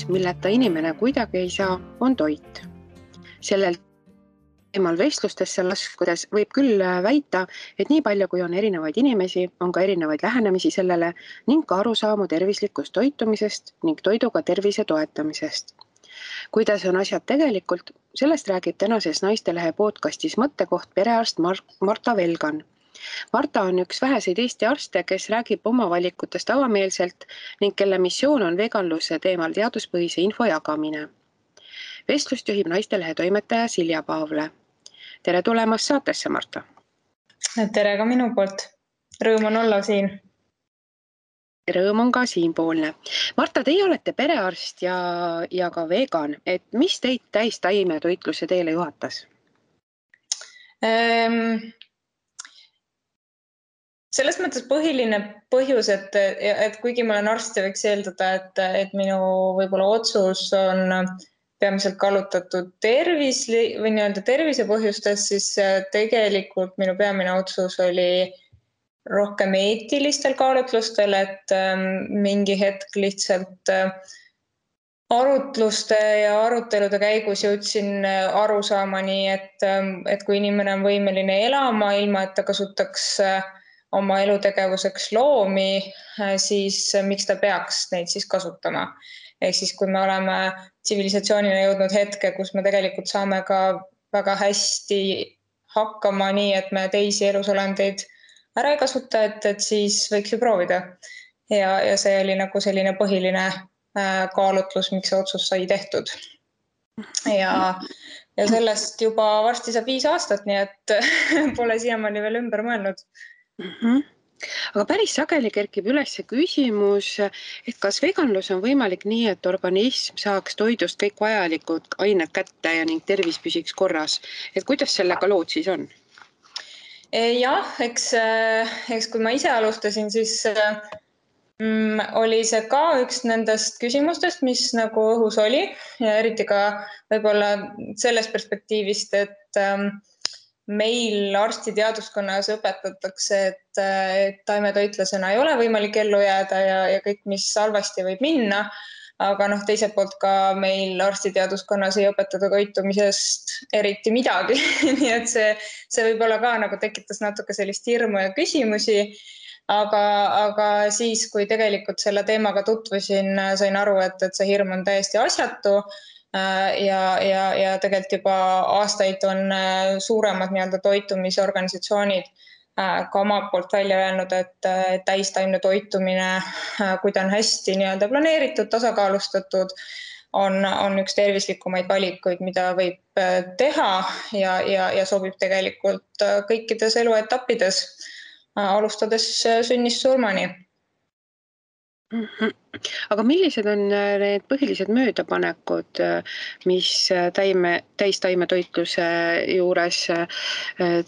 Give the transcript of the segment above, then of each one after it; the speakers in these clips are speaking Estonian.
milleta inimene kuidagi ei saa, on toit. Sellel teemal vestlustesse laskudes võib küll väita, et nii palju kui on erinevaid inimesi, on ka erinevaid lähenemisi sellele ning ka arusaamu tervislikust toitumisest ning toiduga tervise toetamisest. Kuidas on asjad tegelikult, sellest räägib tänases Naistelehe podcastis mõttekoht perearst Marta Velgan. Marta on üks väheseid Eesti arste, kes räägib oma valikutest avameelselt ning kelle missioon on veganluse teemal teaduspõhise info jagamine. Vestlust juhib Naistelehe toimetaja Silja Paavle. Tere tulemast saatesse, Marta! Tere ka minu poolt. Rõõm on olla siin. Rõõm on ka siinpoolne. Marta, teie olete perearst ja ka vegan. Et mis teid täistaimetoitluse teele juhatas? Selles mõttes põhiline põhjus, et kuigi ma olen arst ja võiks eeldada, et minu võib-olla otsus on peamiselt kallutatud tervise põhjustes, siis tegelikult minu peamine otsus oli rohkem eetilistel kaalutlustel, et mingi hetk lihtsalt arutluste ja arutelude käigus jõudsin arusaamani, et kui inimene on võimeline elama ilma, et ta kasutaks oma elutegevuseks loomi, siis miks ta peaks neid siis kasutama. Ehk siis, kui me oleme tsivilisatsioonina jõudnud hetke, kus me tegelikult saame ka väga hästi hakkama nii, et me teisi elusolendeid ära ei kasuta, et siis võiks ju proovida. Ja see oli nagu selline põhiline kaalutlus, miks see otsus sai tehtud. Ja sellest juba varsti saab 5 aastat, nii et pole siiamaani veel ümber mõelnud. Aga päris sageli kerkib üles küsimus, et kas veganlus on võimalik nii, et organism saaks toidust kõik vajalikud ained kätte ja ning tervis püsiks korras. Et kuidas sellega lood siis on? Jah, eks kui ma ise alustasin, siis oli see ka üks nendest küsimustest, mis nagu õhus oli. Ja eriti ka võib-olla sellest perspektiivist, et meil arstiteaduskonnas õpetatakse, et taimetoitlasena ei ole võimalik ellu jääda ja kõik, mis halvasti võib minna. Aga teiselt poolt ka meil arstiteaduskonnas ei õpetada toitumisest eriti midagi. Nii et see võib-olla ka nagu tekitas natuke sellist hirmu ja küsimusi. Aga siis, kui tegelikult selle teemaga tutvusin, sain aru, et see hirm on täiesti asjatu. Ja tegelikult juba aastaid on suuremad toitumisorganisatsioonid ka oma poolt välja öelnud, et täistaimne toitumine, kui ta on hästi planeeritud, tasakaalustatud, on üks tervislikumaid valikuid, mida võib teha ja sobib tegelikult kõikides eluetappides, alustades sünnist surmani. Aga millised on need põhilised möödapanekud, mis täistaimetoitluse juures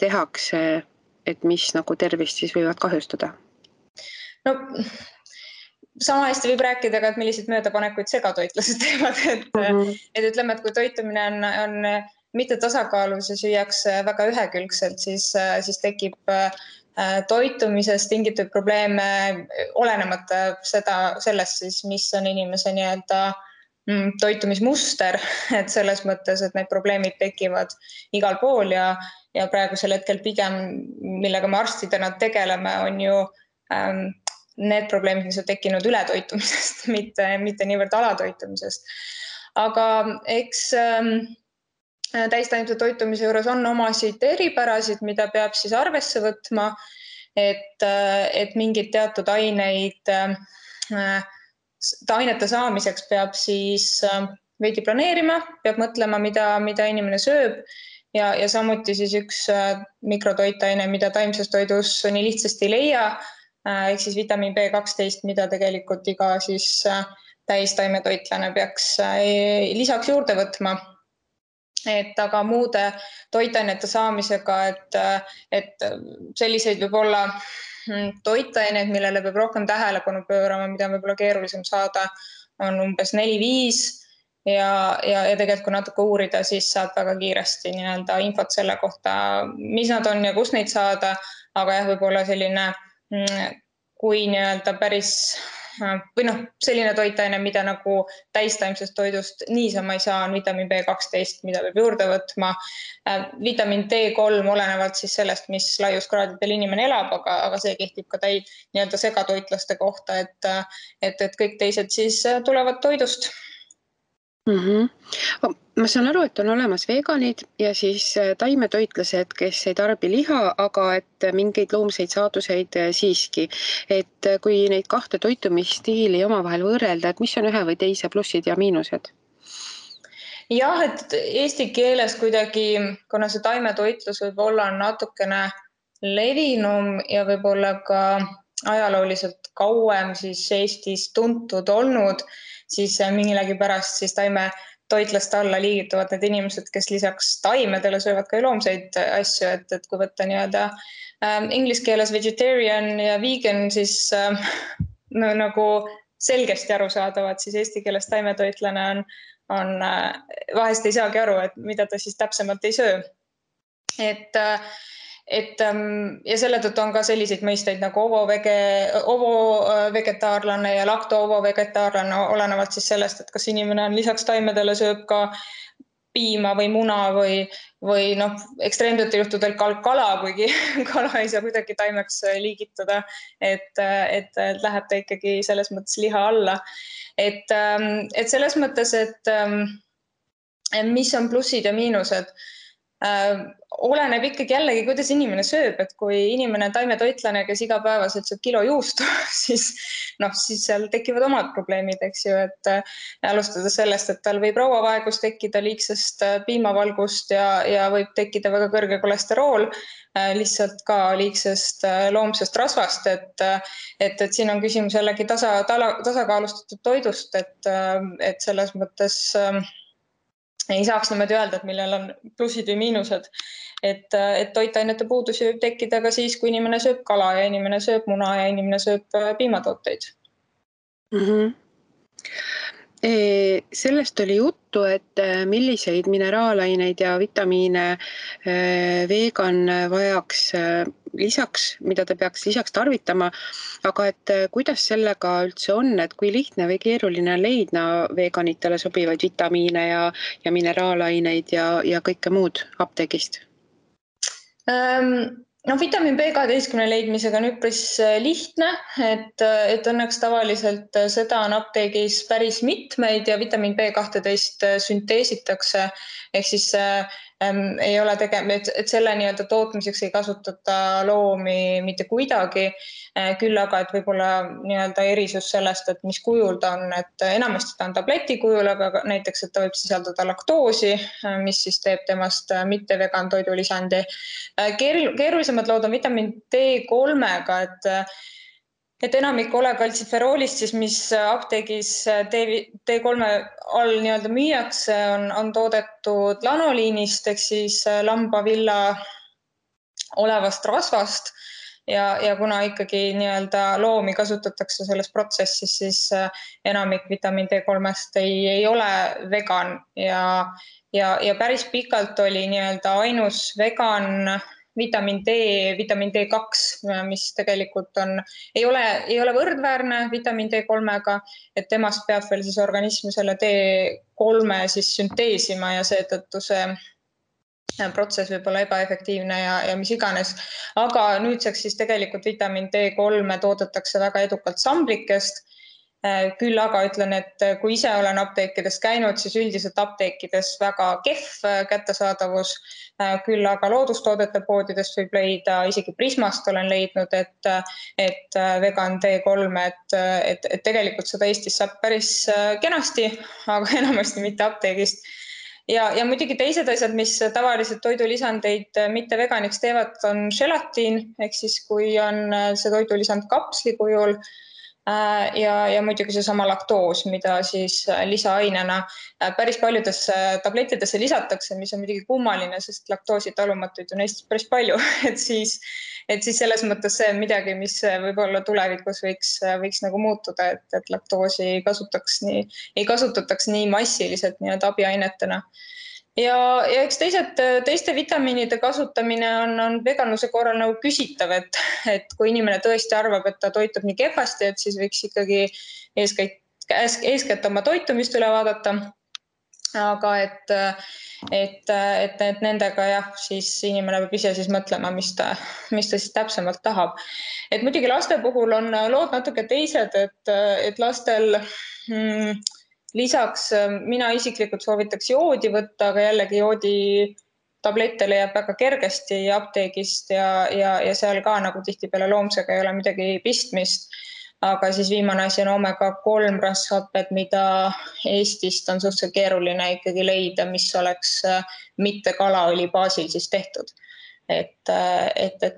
tehakse, et mis nagu tervist siis võivad kahjustada? No, sama hästi võib rääkida, et millised möödapanekuid segatoitlased teevad. Et ütleme, et kui toitumine on mitte tasakaalus ja süüakse väga ühekülgselt, siis tekib toitumisest tingitud probleeme olenemata sellest siis, mis on inimese toitumismuster, et selles mõttes, et need probleemid tekivad igal pool ja praegusel hetkel pigem, millega me arstidena tegeleme, on ju need probleemid, mis on tekkinud ületoitumisest, mitte niivõrd alatoitumisest. Aga eks täistaimse toitumise juures on omasid eripärasid, mida peab siis arvesse võtma, et mingid teatud ainete saamiseks peab siis veidi planeerima, peab mõtlema, mida inimene sööb ja samuti siis üks mikrotoitaine, mida taimses toidus nii lihtsasti ei leia, ehk siis vitamiin B12, mida tegelikult iga siis täistaimetoitlane peaks lisaks juurde võtma. Aga muude toitainete saamisega, et selliseid võib olla toitaineid, millele peab rohkem tähelepanu pöörama, mida on võib-olla keerulisem saada, on umbes 4-5 ja tegelikult kui natuke uurida, siis saab väga kiiresti infot selle kohta, mis nad on ja kus neid saada, aga jah, võib-olla selline, kui päris või noh, selline toitaine, mida nagu täistaimsest toidust niisama ei saa, on vitamiin B12, mida peab juurde võtma. Vitamiin D3 olenevalt siis sellest, mis laiuskraadidel inimene elab, aga see kehtib ka nii-öelda segatoitlaste kohta, et kõik teised siis tulevad toidust. Ma saan aru, et on olemas veganid ja siis taimetoitlased, kes ei tarbi liha, aga et mingeid loomseid saaduseid siiski. Et kui neid kahte toitumisstiili omavahel võrrelda, et mis on ühe või teise plussid ja miinused? Jah, et eesti keeles kuidagi, kuna see taimetoitlus võib olla natukene levinum ja võib-olla ka ajalooliselt kauem siis Eestis tuntud olnud, siis millegipärast siis taimetoitlaste alla liigituvad need inimesed, kes lisaks taimedele söövad ka loomseid asju, et kui võtta nii-öelda inglise keeles vegetarian ja vegan, siis nagu selgesti arusaadavad, siis eesti keeles taimetoitlane on vahest ei saagi aru, et mida ta siis täpsemalt ei söö. Ja selle tõttu on ka selliseid mõisteid nagu ovo-vegetaarlane ja lakto-ovo-vegetaarlane, olenevalt siis sellest, et kas inimene on lisaks taimedele sööb ka piima või muna või noh, ekstreemsetel juhtudel kala, kuigi kala ei saa kuidagi taimeks liigitada, et läheb ta ikkagi selles mõttes liha alla. Et selles mõttes, et mis on plussid ja miinused, oleneb ikkagi jällegi, kuidas inimene sööb, et kui inimene on taimetoitlane, kes igapäevaselt sööb kilo juustu, siis seal tekivad omad probleemid, eks ju, et alustades sellest, et tal võib rauavaegus tekkida liigsest piimavalgust ja võib tekkida väga kõrge kolesterool, lihtsalt ka liigsest loomsest rasvast, et siin on küsimus jällegi tasakaalustatud toidust, et selles mõttes ei saaks niimoodi öelda, et millel on plussid või miinused, et toitainete puudus võib tekkida ka siis, kui inimene sööb kala ja inimene sööb muna ja inimene sööb piimatooteid. Sellest oli juttu, et milliseid mineraalaineid ja vitamiine vegan vajaks lisaks, mida ta peaks lisaks tarvitama, aga et kuidas sellega üldse on, et kui lihtne või keeruline leidna veganitele sobivaid vitamiine ja mineraalaineid ja kõike muud apteegist? Vitamiin B12 leidmisega on üpris lihtne, et õnneks tavaliselt seda on apteegis päris mitmeid ja vitamiin B12 sünteesitakse, ehk siis ei ole et selle nii-öelda tootmiseks ei kasutata loomi mitte kuidagi, küll aga, et võib-olla nii-öelda erisus sellest, et mis kujul ta on, et enamasti ta on tableti kujul, aga näiteks, et ta võib sisaldada laktoosi, mis siis teeb temast mitte vegan toidulisandi. Keerulisemad lood on vitamiin D3-ga, et enamik olekaltsiferoolist, siis mis apteegis D3 all nii-öelda müüakse, on toodetud lanoliinist, ehk siis lambavilla olevast rasvast ja kuna ikkagi nii-öelda loomi kasutatakse selles protsessis, siis enamik vitamiin D3-st ei ole vegan ja päris pikalt oli nii-öelda ainus vegan vitamiin D2, mis tegelikult ei ole võrdväärne vitamiin D3-ga, et temast peab veel siis organism selle D3 siis sünteesima ja seetõttu see protsess võib olla ebaefektiivne ja mis iganes. Aga nüüdseks siis tegelikult vitamiin D3 toodetakse väga edukalt samblikest. Küll aga ütlen, et kui ise olen apteekides käinud, siis üldiselt apteekides väga kehv kättesaadavus, küll aga loodustoodete poodidest võib leida, isegi Prismast olen leidnud, et vegan D3, et tegelikult seda Eestis saab päris kenasti, aga enamasti mitte apteegist. Ja muidugi teised asjad, mis tavaliselt toidulisandeid mitte veganiks teevad, on želatiin, ehk siis kui on see toidulisand kapsli kujul, ja muidugi seesama laktoos, mida siis lisaainena päris paljudesse tablettidesse lisatakse, mis on muidugi kummaline, sest laktoosi talumatuid on Eestis päris palju, et siis selles mõttes see on midagi, mis võib-olla tulevikus võiks nagu muutuda, et laktoosi ei kasutataks nii massiliselt nii-öelda abiainetena. ja eks teiste vitamiinide kasutamine on veganluse korral nagu küsitav, et kui inimene tõesti arvab, et ta toitub nii kehvasti, et siis võiks ikkagi eeskätt oma toitumist üle vaadata. Aga et nendega jah, siis inimene peab ise siis mõtlema, mis ta siis täpsemalt tahab. Et muidugi laste puhul on lood natuke teised, et lastel lisaks mina isiklikult soovitaks joodi võtta, aga jällegi joodi tablette leiab väga kergesti apteegist ja seal ka nagu tihtipeale loomsega ei ole midagi pistmist. Aga siis viimane asi on omega-3 rasvhaped, mida Eestist on suhteliselt keeruline ikkagi leida, mis oleks mitte kalaõli baasil siis tehtud. Et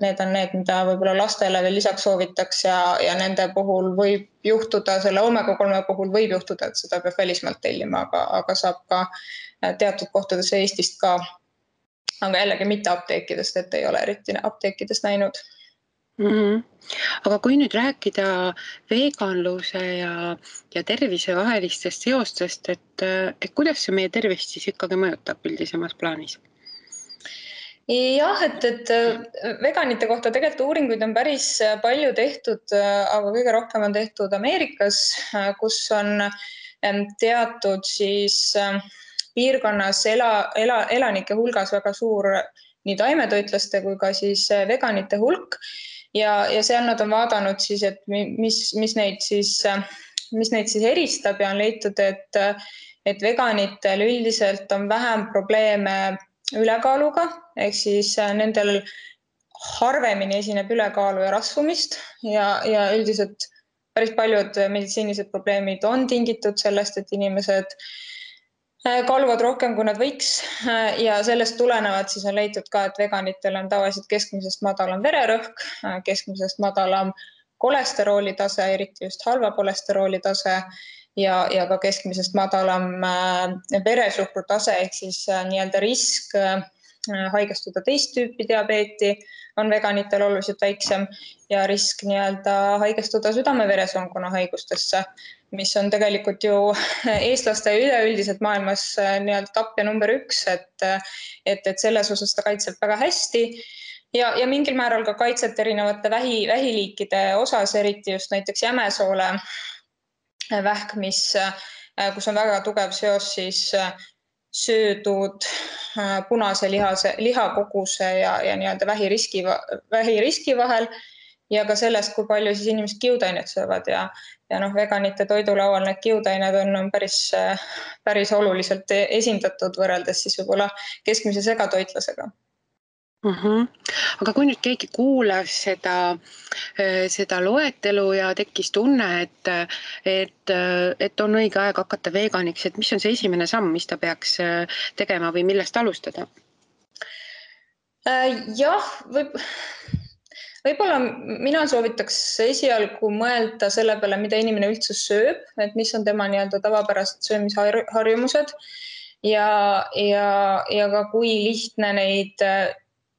need on need, mida võib-olla lastele veel lisaks soovitaks ja nende puhul võib juhtuda, selle omega-3 puhul võib juhtuda, et seda peab välismaalt tellima, aga saab ka teatud kohtades Eestist ka. Aga jällegi mitte apteekidest, et ei ole eriti apteekidest näinud. Aga kui nüüd rääkida veganluse ja tervise vahelistest seostest, et kuidas see meie tervist siis ikkagi mõjutab üldisemas plaanis? Jah, et veganite kohta tegelikult uuringuid on päris palju tehtud, aga kõige rohkem on tehtud Ameerikas, kus on teatud siis piirkonnas elanike hulgas väga suur nii taimetoitlaste kui ka siis veganite hulk. Ja seal nad on vaadanud siis, et mis neid siis eristab ja on leitud, et veganitel üldiselt on vähem probleeme ülekaaluga, ehk siis nendel harvemini esineb ülekaalu ja rasvumist ja üldiselt päris paljud meditsiinilised probleemid on tingitud sellest, et inimesed kaaluvad rohkem, kui nad võiks ja sellest tulenevalt siis on leitud ka, et veganitel on tavaliselt keskmisest madalam vererõhk, keskmisest madalam kolesterooli tase, eriti just halva kolesterooli tase ja ka keskmisest madalam veresuhkru tase, ehk siis nii-öelda risk haigestuda teist tüüpi diabeeti on veganitel oluliselt väiksem ja risk nii-öelda haigestuda südame-veresoonkonna haigustesse, mis on tegelikult ju eestlaste üleüldiselt maailmas nii-öelda tapja number 1, et selles osas ta kaitseb väga hästi ja mingil määral ka kaitset erinevate vähiliikide osas, eriti just näiteks jämesoole vähk, kus on väga tugev seos siis söödud punase lihakoguse ja nii-öelda vähiriski vahel ja ka sellest, kui palju siis inimesed kiudainet söövad ja veganite toidulaual need kiudained on päris oluliselt esindatud võrreldes siis võib-olla keskmise segatoitlasega. Aga kui nüüd keegi kuulas seda loetelu ja tekkis tunne, et on õige aeg hakata veganiks, et mis on see esimene samm, mis ta peaks tegema või millest alustada? Jah, võib-olla mina soovitaks esialgu mõelda selle peale, mida inimene üldse sööb, et mis on tema nii-öelda tavapärased söömisharjumused ja ka kui lihtne neid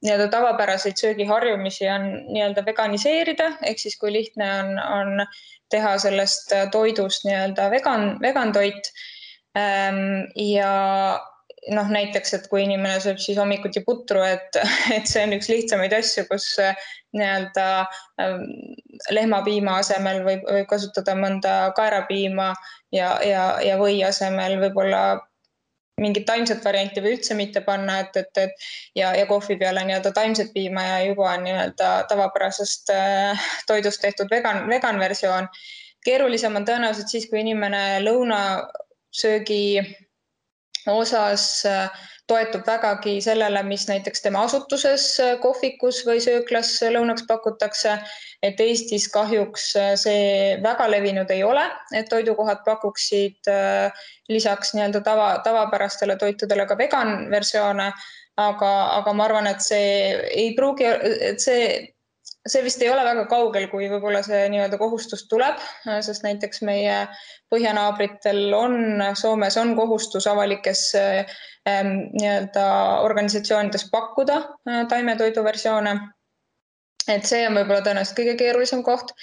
nii-öelda tavapäraseid söögiharjumisi on nii-öelda veganiseerida, ehk siis kui lihtne on teha sellest toidust nii-öelda vegan toit ja näiteks, et kui inimene sööb siis hommikuti putru, et see on üks lihtsamaid asju, kus nii-öelda lehmapiima asemel võib kasutada mõnda kaerapiima ja või asemel võib-olla mingit taimset varianti või üldse mitte panna, ja kohvi peale nii-öelda taimset piima ja juba on nii-öelda tavapärasest toidust tehtud vegan versioon. Keerulisem on tõenäoliselt siis, kui inimene lõunasöögi osas toetub vägagi sellele, mis näiteks tema asutuses kohvikus või sööklas lõunaks pakutakse, et Eestis kahjuks see väga levinud ei ole, et toidukohad pakuksid lisaks nii-öelda tavapärastele toitudele ka vegan versioone, aga ma arvan, et see ei pruugi, et see vist ei ole väga kaugel, kui võib-olla see nii-öelda kohustus tuleb, sest näiteks meie põhjanaabritel Soomes on kohustus avalikes nii-öelda organisatsioonides pakkuda taimetoidu versioone. Et see on võib-olla tõenäoliselt kõige keerulisem koht.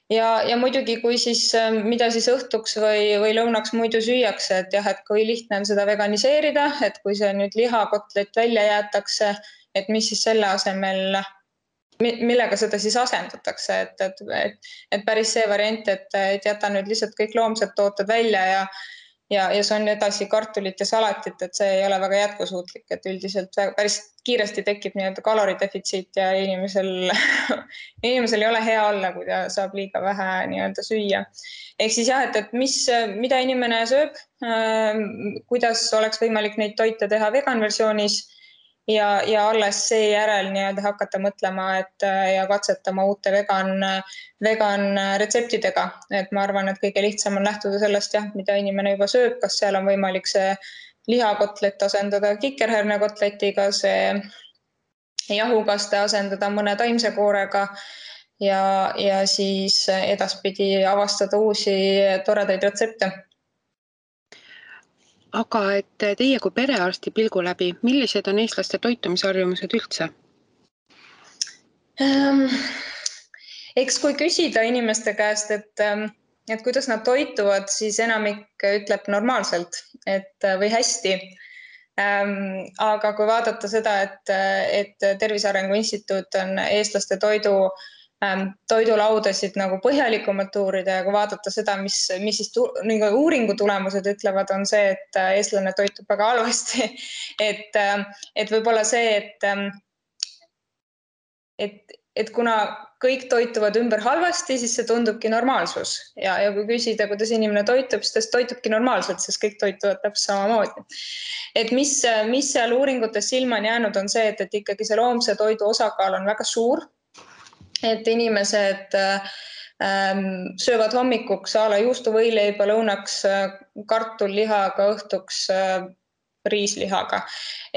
ja muidugi, kui siis, mida siis õhtuks või lõunaks muidu süüakse, et jah, et kui lihtne on seda veganiseerida, et kui see nüüd lihakotlet välja jäetakse, et mis siis selle asemel, millega seda siis asendatakse, et päris see variant, et jäta nüüd lihtsalt kõik loomsed tooted välja ja see on edasi kartulit ja salatit, et see ei ole väga jätkusuutlik, et üldiselt päris kiiresti tekib nii-öelda kaloridefitsiit ja inimesel ei ole hea olla, kui ta saab liiga vähe nii-öelda süüa. Ehk siis jah, et mida inimene sööb, kuidas oleks võimalik neid toite teha veganversioonis ja alles seejärel nii-öelda hakata mõtlema ja katsetama uute vegan retseptidega. Et ma arvan, et kõige lihtsam on lähtuda sellest, jah, mida inimene juba sööb, kas seal on võimalik see lihakotlet asendada kikerhernekotletiga, see jahukaste asendada mõne taimse koorega ja siis edaspidi avastada uusi toredaid retsepte. Aga et teie kui perearsti pilgu läbi, millised on eestlaste toitumisharjumused üldse? Eks kui küsida inimeste käest, et kuidas nad toituvad, siis enamik ütleb normaalselt või hästi. Aga kui vaadata seda, et Tervise Arengu Instituut on eestlaste toidulaudasid nagu põhjalikumalt uurida ja kui vaadata seda, mis siis uuringu tulemused ütlevad, on see, et eestlane toitub väga halvasti. Et võib-olla see, et kuna kõik toituvad ümber halvasti, siis see tundubki normaalsus. Ja kui küsida, kuidas inimene toitub, siis ta toitubki normaalselt, sest kõik toituvad täpselt samamoodi. Et mis seal uuringutes silma on jäänud, on see, et ikkagi see loomse toidu osakaal on väga suur. Et inimesed söövad hommikuks a la juustuvõileiba, lõunaks kartullihaga, õhtuks riislihaga.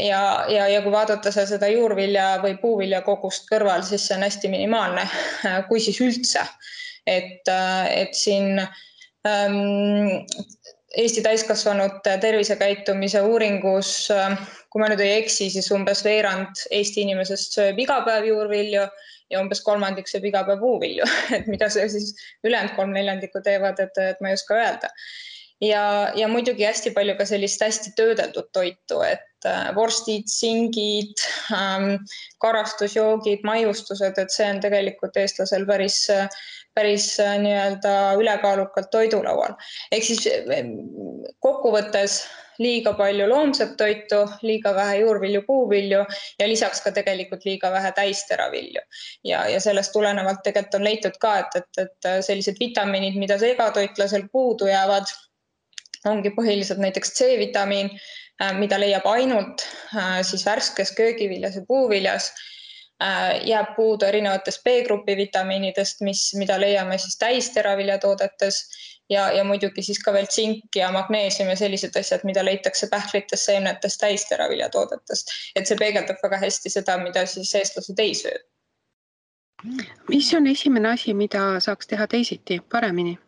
Ja kui vaadata seda juurvilja või puuvilja kogust kõrval, siis see on hästi minimaalne, kui siis üldse. Et siin Eesti täiskasvanute tervisekäitumise uuringus, kui ma nüüd ei eksi, siis umbes veerand Eesti inimesest sööb iga päev juurvilju ja umbes kolmandik sööb iga päev puuvilju. Et mida see siis ülejäänud 3/4 teevad, et ma ei oska öelda. Ja muidugi hästi palju ka sellist hästi töödeldud toitu, et vorstid, singid, karastusjoogid, maiustused, et see on tegelikult eestlasel päris nii-öelda ülekaalukalt toidulaual. Ehk siis kokkuvõttes liiga palju loomset toitu, liiga vähe juurvilju, puuvilju ja lisaks ka tegelikult liiga vähe täisteravilju. Ja sellest tulenevalt tegelikult on leitud ka, et sellised vitamiinid, mida segatoitlasel puudu jäävad, ongi põhiliselt näiteks C-vitamiin, mida leiab ainult siis värskes köögiviljas ja puuviljas, jääb puudu erinevatest B-grupi vitamiinidest, mida leiame siis täisteraviljatoodetes ja muidugi siis ka veel tsink ja magneesium ja sellised asjad, mida leitakse pähklitest, seemnetest, täisteraviljatoodetest. Et see peegeldab väga hästi seda, mida siis eestlased ei söö. Mis on esimene asi, mida saaks teha teisiti, paremini?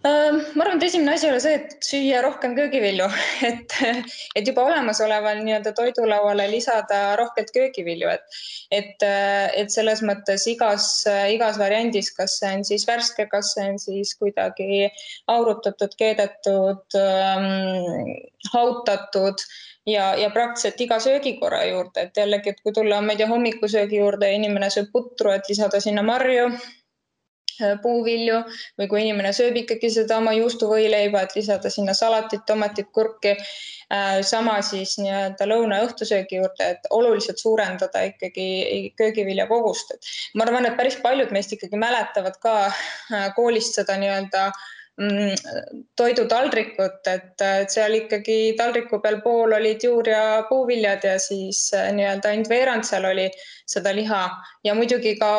Ma arvan, et esimene asi oli see, et süüa rohkem köögivilju, et juba olemasoleval nii-öelda toidulauale lisada rohkelt köögivilju, et selles mõttes igas variandis, kas see on siis värske, kas see on siis kuidagi aurutatud, keedetud, hautatud ja praktiliselt iga söögikorra juurde, et jällegi, et kui tulla, ma ei tea, hommikusöögi juurde ja inimene sööb putru, et lisada sinna marju, puuvilju või kui inimene sööb ikkagi seda oma juustuvõileiba, et lisada sinna salatit, tomatit, kurki, sama siis nii-öelda lõuna- ja õhtusöögi juurde, et oluliselt suurendada ikkagi köögivilja kogust. Ma arvan, et päris paljud meist ikkagi mäletavad ka koolist seda nii-öelda toidutaldrikut, et seal ikkagi taldriku peal pool olid juur- ja puuviljad ja siis nii-öelda ainult veerand seal oli seda liha ja muidugi ka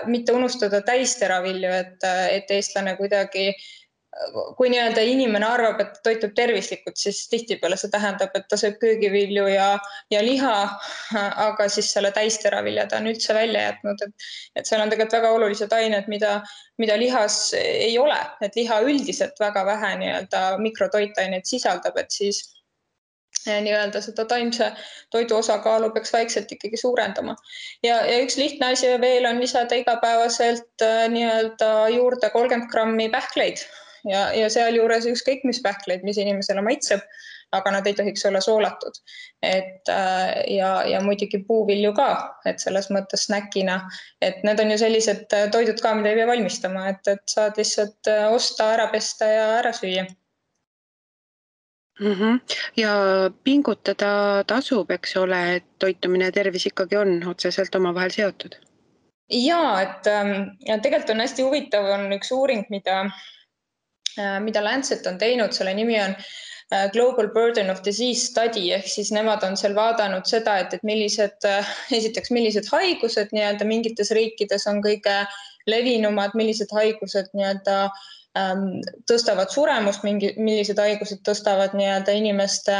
mitte unustada täisteravilju, et eestlane kuidagi, kui nii-öelda inimene arvab, et toitub tervislikult, siis tihtipeale see tähendab, et ta sööb köögivilju ja liha, aga siis selle täisteravilja ta on üldse välja jätnud, et seal on tegelikult väga olulised ained, mida lihas ei ole, et liha üldiselt väga vähe nii-öelda mikrotoitaineid sisaldab, et siis nii-öelda seda taimse toidu osakaalu peaks vaikselt ikkagi suurendama. Ja üks lihtne asi veel on lisada igapäevaselt nii-öelda juurde 30 grammi pähkleid ja sealjuures ükskõik mis pähkleid, mis inimesele maitseb, aga nad ei tohiks olla soolatud. Ja muidugi puuvilju ka, et selles mõttes snäkina, et need on ju sellised toidud ka, mida ei pea valmistama, et saad lihtsalt osta, ära pesta ja ära süüa. Ja pingutada tasub, eks ole, et toitumine ja tervis ikkagi on otseselt omavahel seotud. Jaa, et tegelikult on hästi huvitav, on üks uuring, mida Lancet on teinud, selle nimi on Global Burden of Disease Study, ehk siis nemad on seal vaadanud seda, et millised haigused nii-öelda mingites riikides on kõige levinumad, millised haigused nii-öelda tõstavad suremust, millised haigused tõstavad nii-öelda inimeste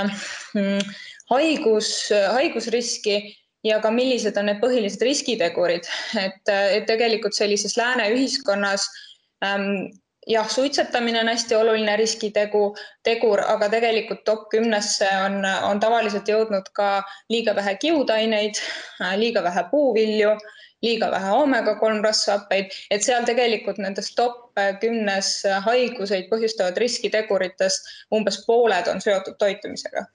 haigusriski ja ka millised on need põhilised riskitegurid. Et tegelikult sellises lääne ühiskonnas jah, suitsetamine on hästi oluline riskitegur, aga tegelikult top 10-sse on tavaliselt jõudnud ka liiga vähe kiudaineid, liiga vähe puuvilju, liiga vähe omega-3 rasvhappeid, et seal tegelikult nendest top 10 haiguseid põhjustavad riskiteguritest umbes pooled on seotud toitumisega.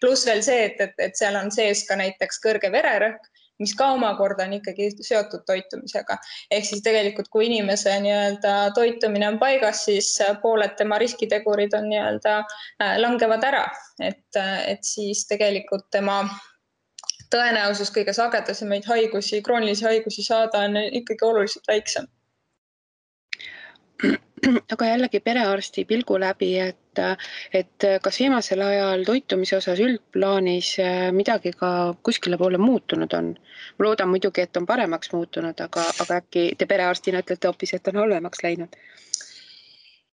Pluss veel see, et seal on sees ka näiteks kõrge vererõhk, mis ka omakorda on ikkagi seotud toitumisega. Ehk siis tegelikult, kui inimese nii-öelda toitumine on paigas, siis pooled tema riskitegurid on nii-öelda langevad ära. Et siis tegelikult tema tõenäosus kõige sagedasemaid haigusi, kroonilisi haigusi saada on ikkagi oluliselt väiksem. Aga jällegi perearsti pilgu läbi, et kas viimasel ajal toitumise osas üldplaanis midagi ka kuskile poole muutunud on? Ma loodan muidugi, et on paremaks muutunud, aga äkki te perearstina ütlete hoopis, et on halvemaks läinud?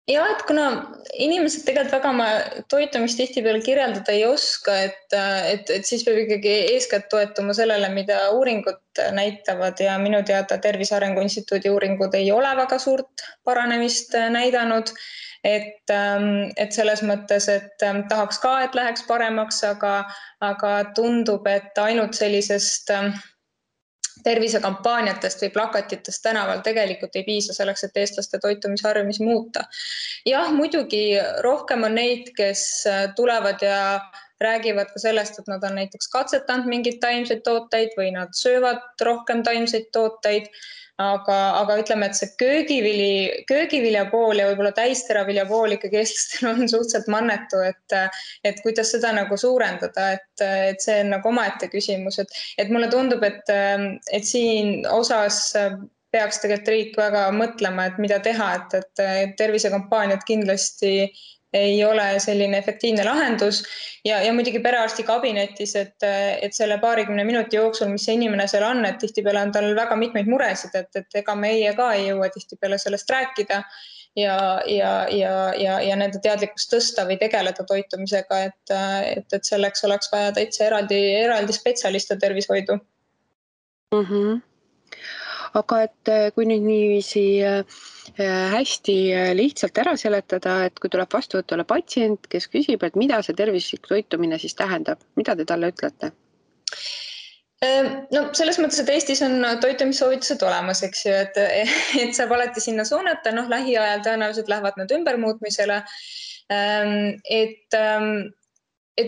Ja, et kuna inimesed tegelikult väga oma toitumist tihtipeale kirjeldada ei oska, et siis peab ikkagi eeskätt toetuma sellele, mida uuringud näitavad ja minu teada Tervise Arengu Instituudi uuringud ei ole väga suurt paranemist näidanud. Et selles mõttes, et tahaks ka, et läheks paremaks, aga tundub, et ainult sellisest tervisekampaaniatest või plakatitest tänaval tegelikult ei piisa selleks, et eestlaste toitumisharjumisi muuta. Jah, muidugi rohkem on neid, kes tulevad ja räägivad ka sellest, et nad on näiteks katsetanud mingeid taimseid tooteid või nad söövad rohkem taimseid tooteid, aga ütleme, et see köögivilja pool ja võib-olla täisteravilja pool ikkagi eestlastel on suhteliselt mannetu, et kuidas seda nagu suurendada, et see on nagu omaette küsimus, et mulle tundub, et siin osas peaks tegelikult riik väga mõtlema, et mida teha, et tervisekampaaniad kindlasti ei ole selline efektiivne lahendus ja muidugi perearsti kabinetis, et selle 20 minuti jooksul, mis see inimene seal on, et tihtipeale on tal väga mitmeid muresid, et ega meie ka ei jõua tihtipeale sellest rääkida ja nende teadlikkust tõsta või tegeleda toitumisega, et selleks oleks vaja täitsa eraldi spetsialiste tervishoidu. Aga et kui nüüd niiviisi hästi lihtsalt ära seletada, et kui tuleb vastuvõtule patsient, kes küsib, et mida see tervislik toitumine siis tähendab, mida te talle ütlete? No selles mõttes, et Eestis on toitumissoovitused olemas, eks ju, et saab alati sinna suunata, lähiajal tõenäoliselt lähevad nad ümbermuutmisele. Et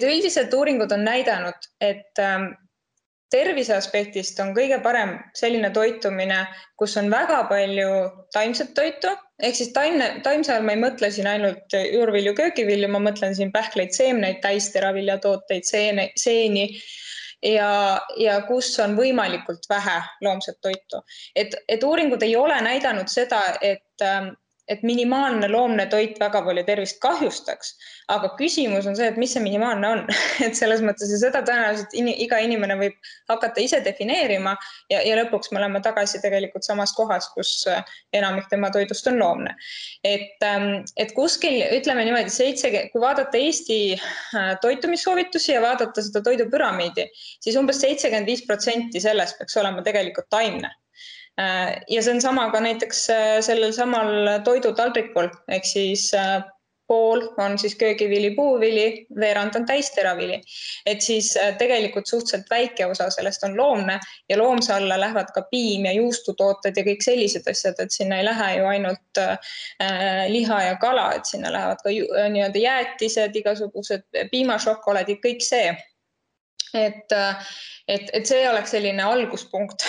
üldiselt uuringud on näidanud, et tervise aspektist on kõige parem selline toitumine, kus on väga palju taimset toitu, ehk siis taimse all ma ei mõtle siin ainult juurvilju, köögivilju, ma mõtlen siin pähkleid, seemneid, täisteraviljatooteid, seeni ja kus on võimalikult vähe loomset toitu. Et uuringud ei ole näidanud seda, et minimaalne loomne toit väga palju tervist kahjustaks, aga küsimus on see, et mis see minimaalne on. Et selles mõttes ja seda tõenäoliselt iga inimene võib hakata ise defineerima ja lõpuks me oleme tagasi tegelikult samas kohas, kus enamik tema toidust on loomne. Et kuskil, ütleme niimoodi, kui vaadata Eesti toitumissoovitusi ja vaadata seda toidupüramiidi, siis umbes 75% sellest peaks olema tegelikult taimne. Ja see on sama ka näiteks sellel samal toidutaldrikul, ehk siis pool on siis köögivili, puuvili, veerand on täisteravili. Et siis tegelikult suhteliselt väike osa sellest on loomne ja loomse alla lähevad ka piim ja juustutooted ja kõik sellised asjad, et sinna ei lähe ju ainult liha ja kala, et sinna lähevad ka nii-öelda jäätised, igasugused piimašokolaadid, kõik see. Et see oleks selline alguspunkt,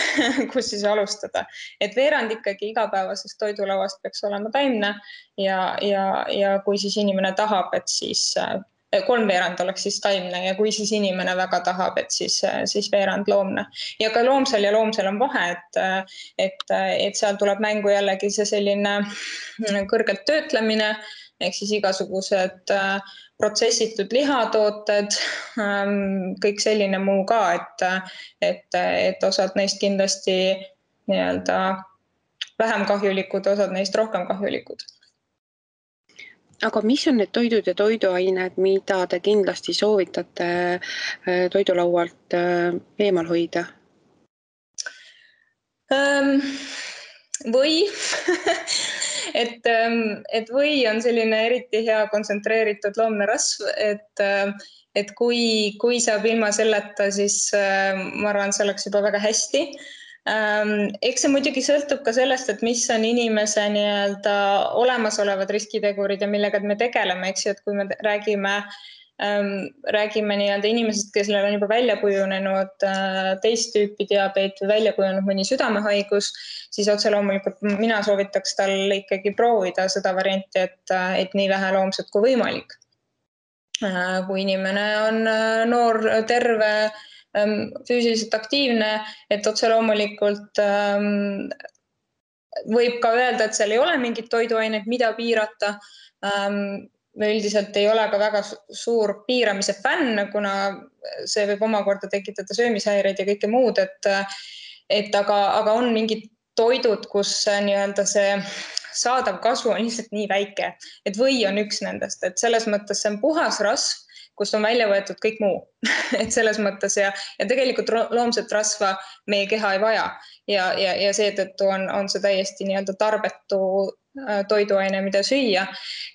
kus siis alustada. Et veerand ikkagi igapäevasest toidulauast peaks olema taimne ja kui siis inimene tahab, et siis 3/4 oleks siis taimne ja kui siis inimene väga tahab, et siis veerand loomne. Ja ka loomsel on vahe, et seal tuleb mängu jällegi see selline kõrgelt töötlemine, ehk siis igasugused protsessitud lihatooted, kõik selline muu ka, et osad neist kindlasti nii-öelda vähem kahjulikud, osad neist rohkem kahjulikud. Aga mis on need toidud ja toiduained, mida te kindlasti soovitate toidulaualt eemal hoida? Või et või on selline eriti hea kontsentreeritud loomne rasv, et kui saab ilma selleta, siis ma arvan, see oleks juba väga hästi. Eks see muidugi sõltub ka sellest, et mis on inimese nii-öelda olemasolevad riskitegurid ja millega me tegeleme, eks ju, et kui me räägime nii-öelda inimesest, kellel on juba välja kujunenud teist tüüpi diabeet või välja kujunenud mõni südamehaigus, siis otse loomulikult mina soovitaks tal ikkagi proovida seda varianti, et nii vähe loomset kui võimalik. Kui inimene on noor, terve, füüsiliselt aktiivne, et otse loomulikult võib ka öelda, et seal ei ole mingit toiduainet, mida piirata. Me üldiselt ei ole ka väga suur piiramise fänn, kuna see võib omakorda tekitada söömishäireid ja kõike muud, aga on mingid toidud, kus nii-öelda see saadav kasu on lihtsalt nii väike, et või on üks nendest, et selles mõttes see on puhas rasv, kust on välja võetud kõik muu. Et selles mõttes ja tegelikult loomset rasva meie keha ei vaja ja seetõttu on see täiesti nii-öelda tarbetu toiduaine, mida süüa.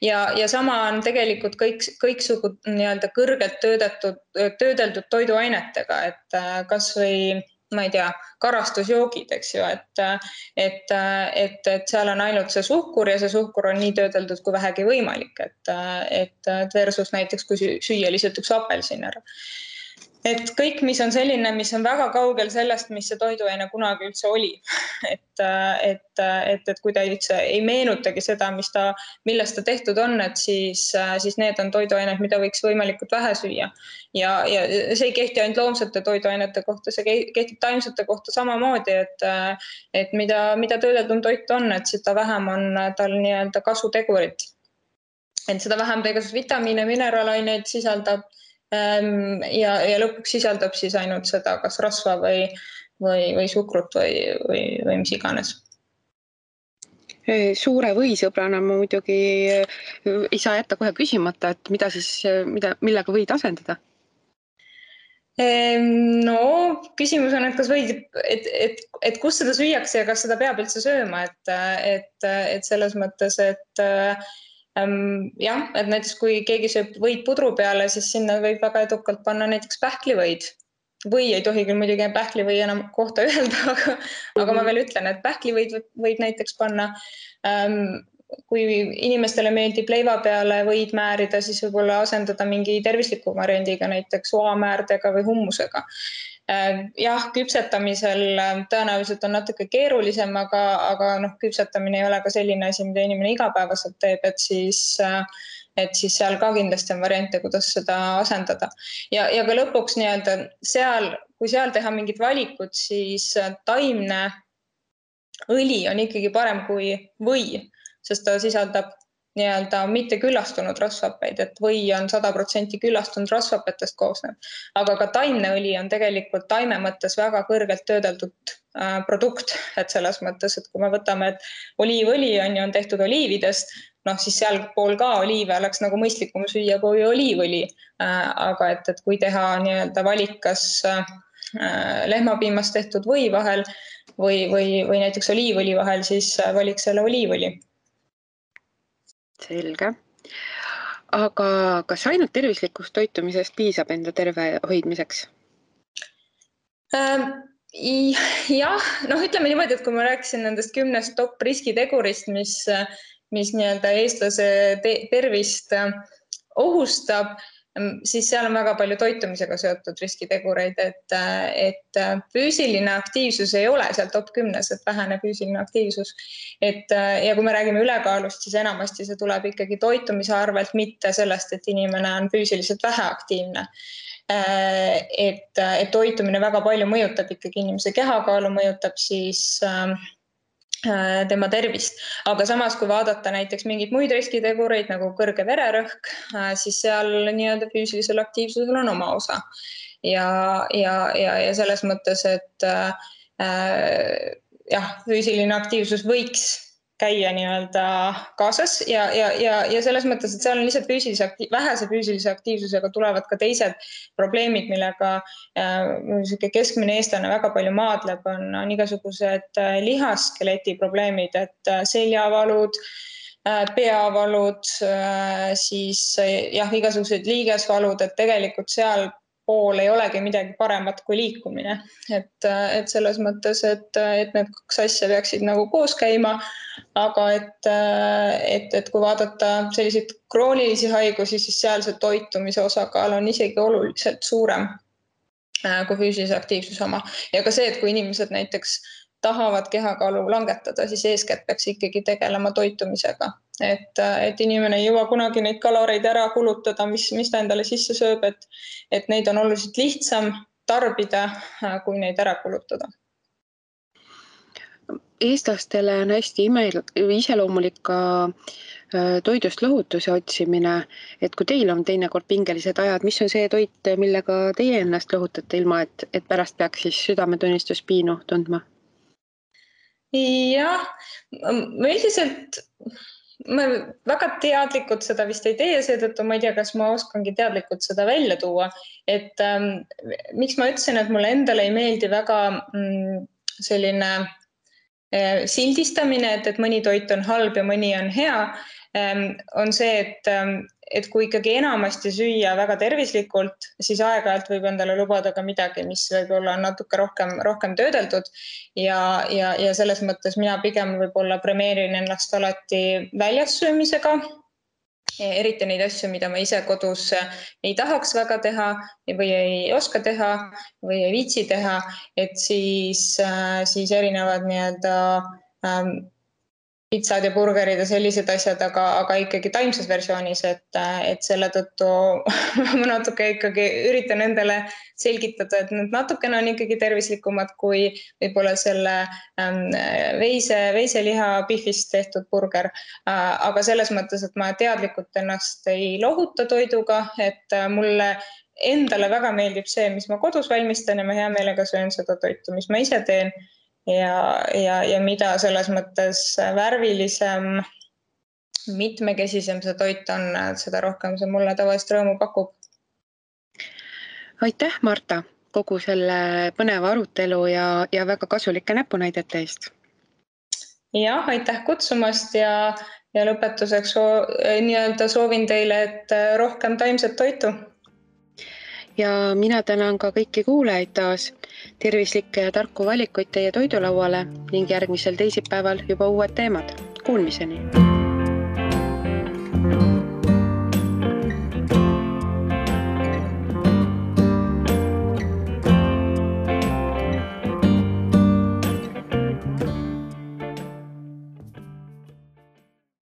Ja sama on tegelikult kõiksugu nii-öelda kõrgelt töödeldud toiduainetega, et kas või, ma ei tea, karastusjoogid, eks ju, et seal on ainult see suhkur ja see suhkur on nii töödeldud kui vähegi võimalik, et versus näiteks kui süüa lihtsalt üks apelsin ära. Et kõik, mis on selline, mis on väga kaugel sellest, mis see toiduaine kunagi üldse oli. Et kui ta üldse ei meenutagi seda, millest ta tehtud on, et siis need on toiduained, mida võiks võimalikult vähe süüa. Ja see ei kehti ainult loomsete toiduainete kohta, see kehtib taimsete kohta samamoodi, et mida töödeldum toit on, et seda vähem on tal nii-öelda kasutegurit. Et seda vähem tegus vitamiine, mineraalaineid sisaldab ja lõpuks sisaldab siis ainult seda, kas rasva või suhkrut või mis iganes. Suure võisõbrana ma muidugi ei saa jätta kohe küsimata, et millega võid asendada? No, küsimus on, et kas võid, et kus seda süüakse ja kas seda peab üldse sööma, et selles mõttes, et jah, et näiteks kui keegi sööb võid pudru peale, siis sinna võib väga edukalt panna näiteks pähklivõid. Või ei tohi küll muidugi pähklivõi enam kohta öelda, aga ma veel ütlen, et pähklivõid võib näiteks panna. Kui inimestele meeldib leiva peale võid määrida, siis võib-olla asendada mingi tervisliku variandiga, näiteks oamäärdega või hummusega. Jah, küpsetamisel tõenäoliselt on natuke keerulisem, aga küpsetamine ei ole ka selline asi, mida inimene igapäevaselt teeb, et siis seal ka kindlasti on variante, kuidas seda asendada. Ja ka lõpuks nii-öelda kui seal teha mingid valikud, siis taimne õli on ikkagi parem kui või, sest ta sisaldab nii-öelda mitte küllastunud rasvhappeid, et või on 100% küllastunud rasvhappetest koosnev. Aga ka taimne õli on tegelikult taime mõttes väga kõrgelt töödeldud produkt, et selles mõttes, et kui me võtame, et oliivõli on tehtud oliividest, siis seal pool ka oliive oleks nagu mõistlikum süüa kui oliivõli. Aga et kui teha nii-öelda valik, kas lehmapiimast tehtud või vahel või näiteks oliivõli vahel, siis valiks selle oliivõli. Selge. Aga kas ainult tervislikust toitumisest piisab enda terve hoidmiseks? Jah, ütleme niimoodi, et kui ma rääkisin nendest 10 top riskitegurist, mis nii-öelda eestlase tervist ohustab, siis seal on väga palju toitumisega seotud riskitegureid, et füüsiline aktiivsus ei ole seal top 10, et vähene füüsiline aktiivsus. Ja kui me räägime ülekaalust, siis enamasti see tuleb ikkagi toitumise arvelt, mitte sellest, et inimene on füüsiliselt väheaktiivne. Et toitumine väga palju mõjutab ikkagi inimese kehakaalu, mõjutab siis tema tervist. Aga samas, kui vaadata näiteks mingeid muid riskitegureid nagu kõrge vererõhk, siis seal nii-öelda füüsilisel aktiivsusel on oma osa. Ja selles mõttes, et füüsiline aktiivsus võiks käia nii-öelda kaasas ja selles mõttes, et seal on lihtsalt vähese füüsilise aktiivsusega tulevad ka teised probleemid, millega keskmine eestlane väga palju maadleb, on igasugused lihaskeleti probleemid, et seljavalud, peavalud, siis igasugused liigesvalud, et tegelikult seal pool ei olegi midagi paremat kui liikumine. Et selles mõttes, et need kaks asja peaksid nagu koos käima, aga et kui vaadata selliseid kroonilisi haigusi, siis seal see toitumise osakaal on isegi oluliselt suurem kui füüsilise aktiivsuse oma. Ja ka see, et kui inimesed näiteks tahavad kehakaalu langetada, siis eeskätt peaks ikkagi tegelema toitumisega. Et inimene ei jõua kunagi neid kaloreid ära kulutada, mis ta endale sisse sööb, et neid on oluliselt lihtsam tarbida, kui neid ära kulutada. Eestlastele on hästi iseloomulik ka toidust lohutuse otsimine, et kui teil on teinekord pingelised ajad, mis on see toit, millega teie ennast lohutate ilma, et pärast peaks siis südametunnistus piinu tundma? Jah, üldiselt ma väga teadlikult seda vist ei tee, seetõttu ma ei tea, kas ma oskangi teadlikult seda välja tuua. Et miks ma ütlesin, et mulle endale ei meeldi väga selline sildistamine, et mõni toit on halb ja mõni on hea, on see, et kui ikkagi enamasti süüa väga tervislikult, siis aeg-ajalt võib endale lubada ka midagi, mis võib-olla on natuke rohkem töödeldud ja selles mõttes mina pigem võib-olla premeerin ennast alati väljas söömisega, eriti neid asju, mida ma ise kodus ei tahaks väga teha või ei oska teha või ei viitsi teha, et siis erinevad nii-öelda pitsad ja burgerid ja sellised asjad, aga ikkagi taimses versioonis, et selle tõttu ma natuke ikkagi üritan endale selgitada, et need natukene on ikkagi tervislikumad kui võib-olla selle veiseliha pihvist tehtud burger. Aga selles mõttes, et ma teadlikult ennast ei lohuta toiduga, et mulle endale väga meeldib see, mis ma kodus valmistan ja ma hea meelega söön seda toitu, mis ma ise teen. Ja mida selles mõttes värvilisem, mitmekesisem see toit on, seda rohkem see mulle tavaliselt rõõmu pakub. Aitäh, Marta, kogu selle põneva arutelu ja väga kasulike näpunäidete eest. Jah, aitäh kutsumast ja lõpetuseks nii-öelda soovin teile, et rohkem taimset toitu. Ja mina tänan ka kõiki kuulajaid taas, tervislikke ja tarku valikuid teie toidulauale ning järgmisel teisipäeval juba uued teemad. Kuulmiseni!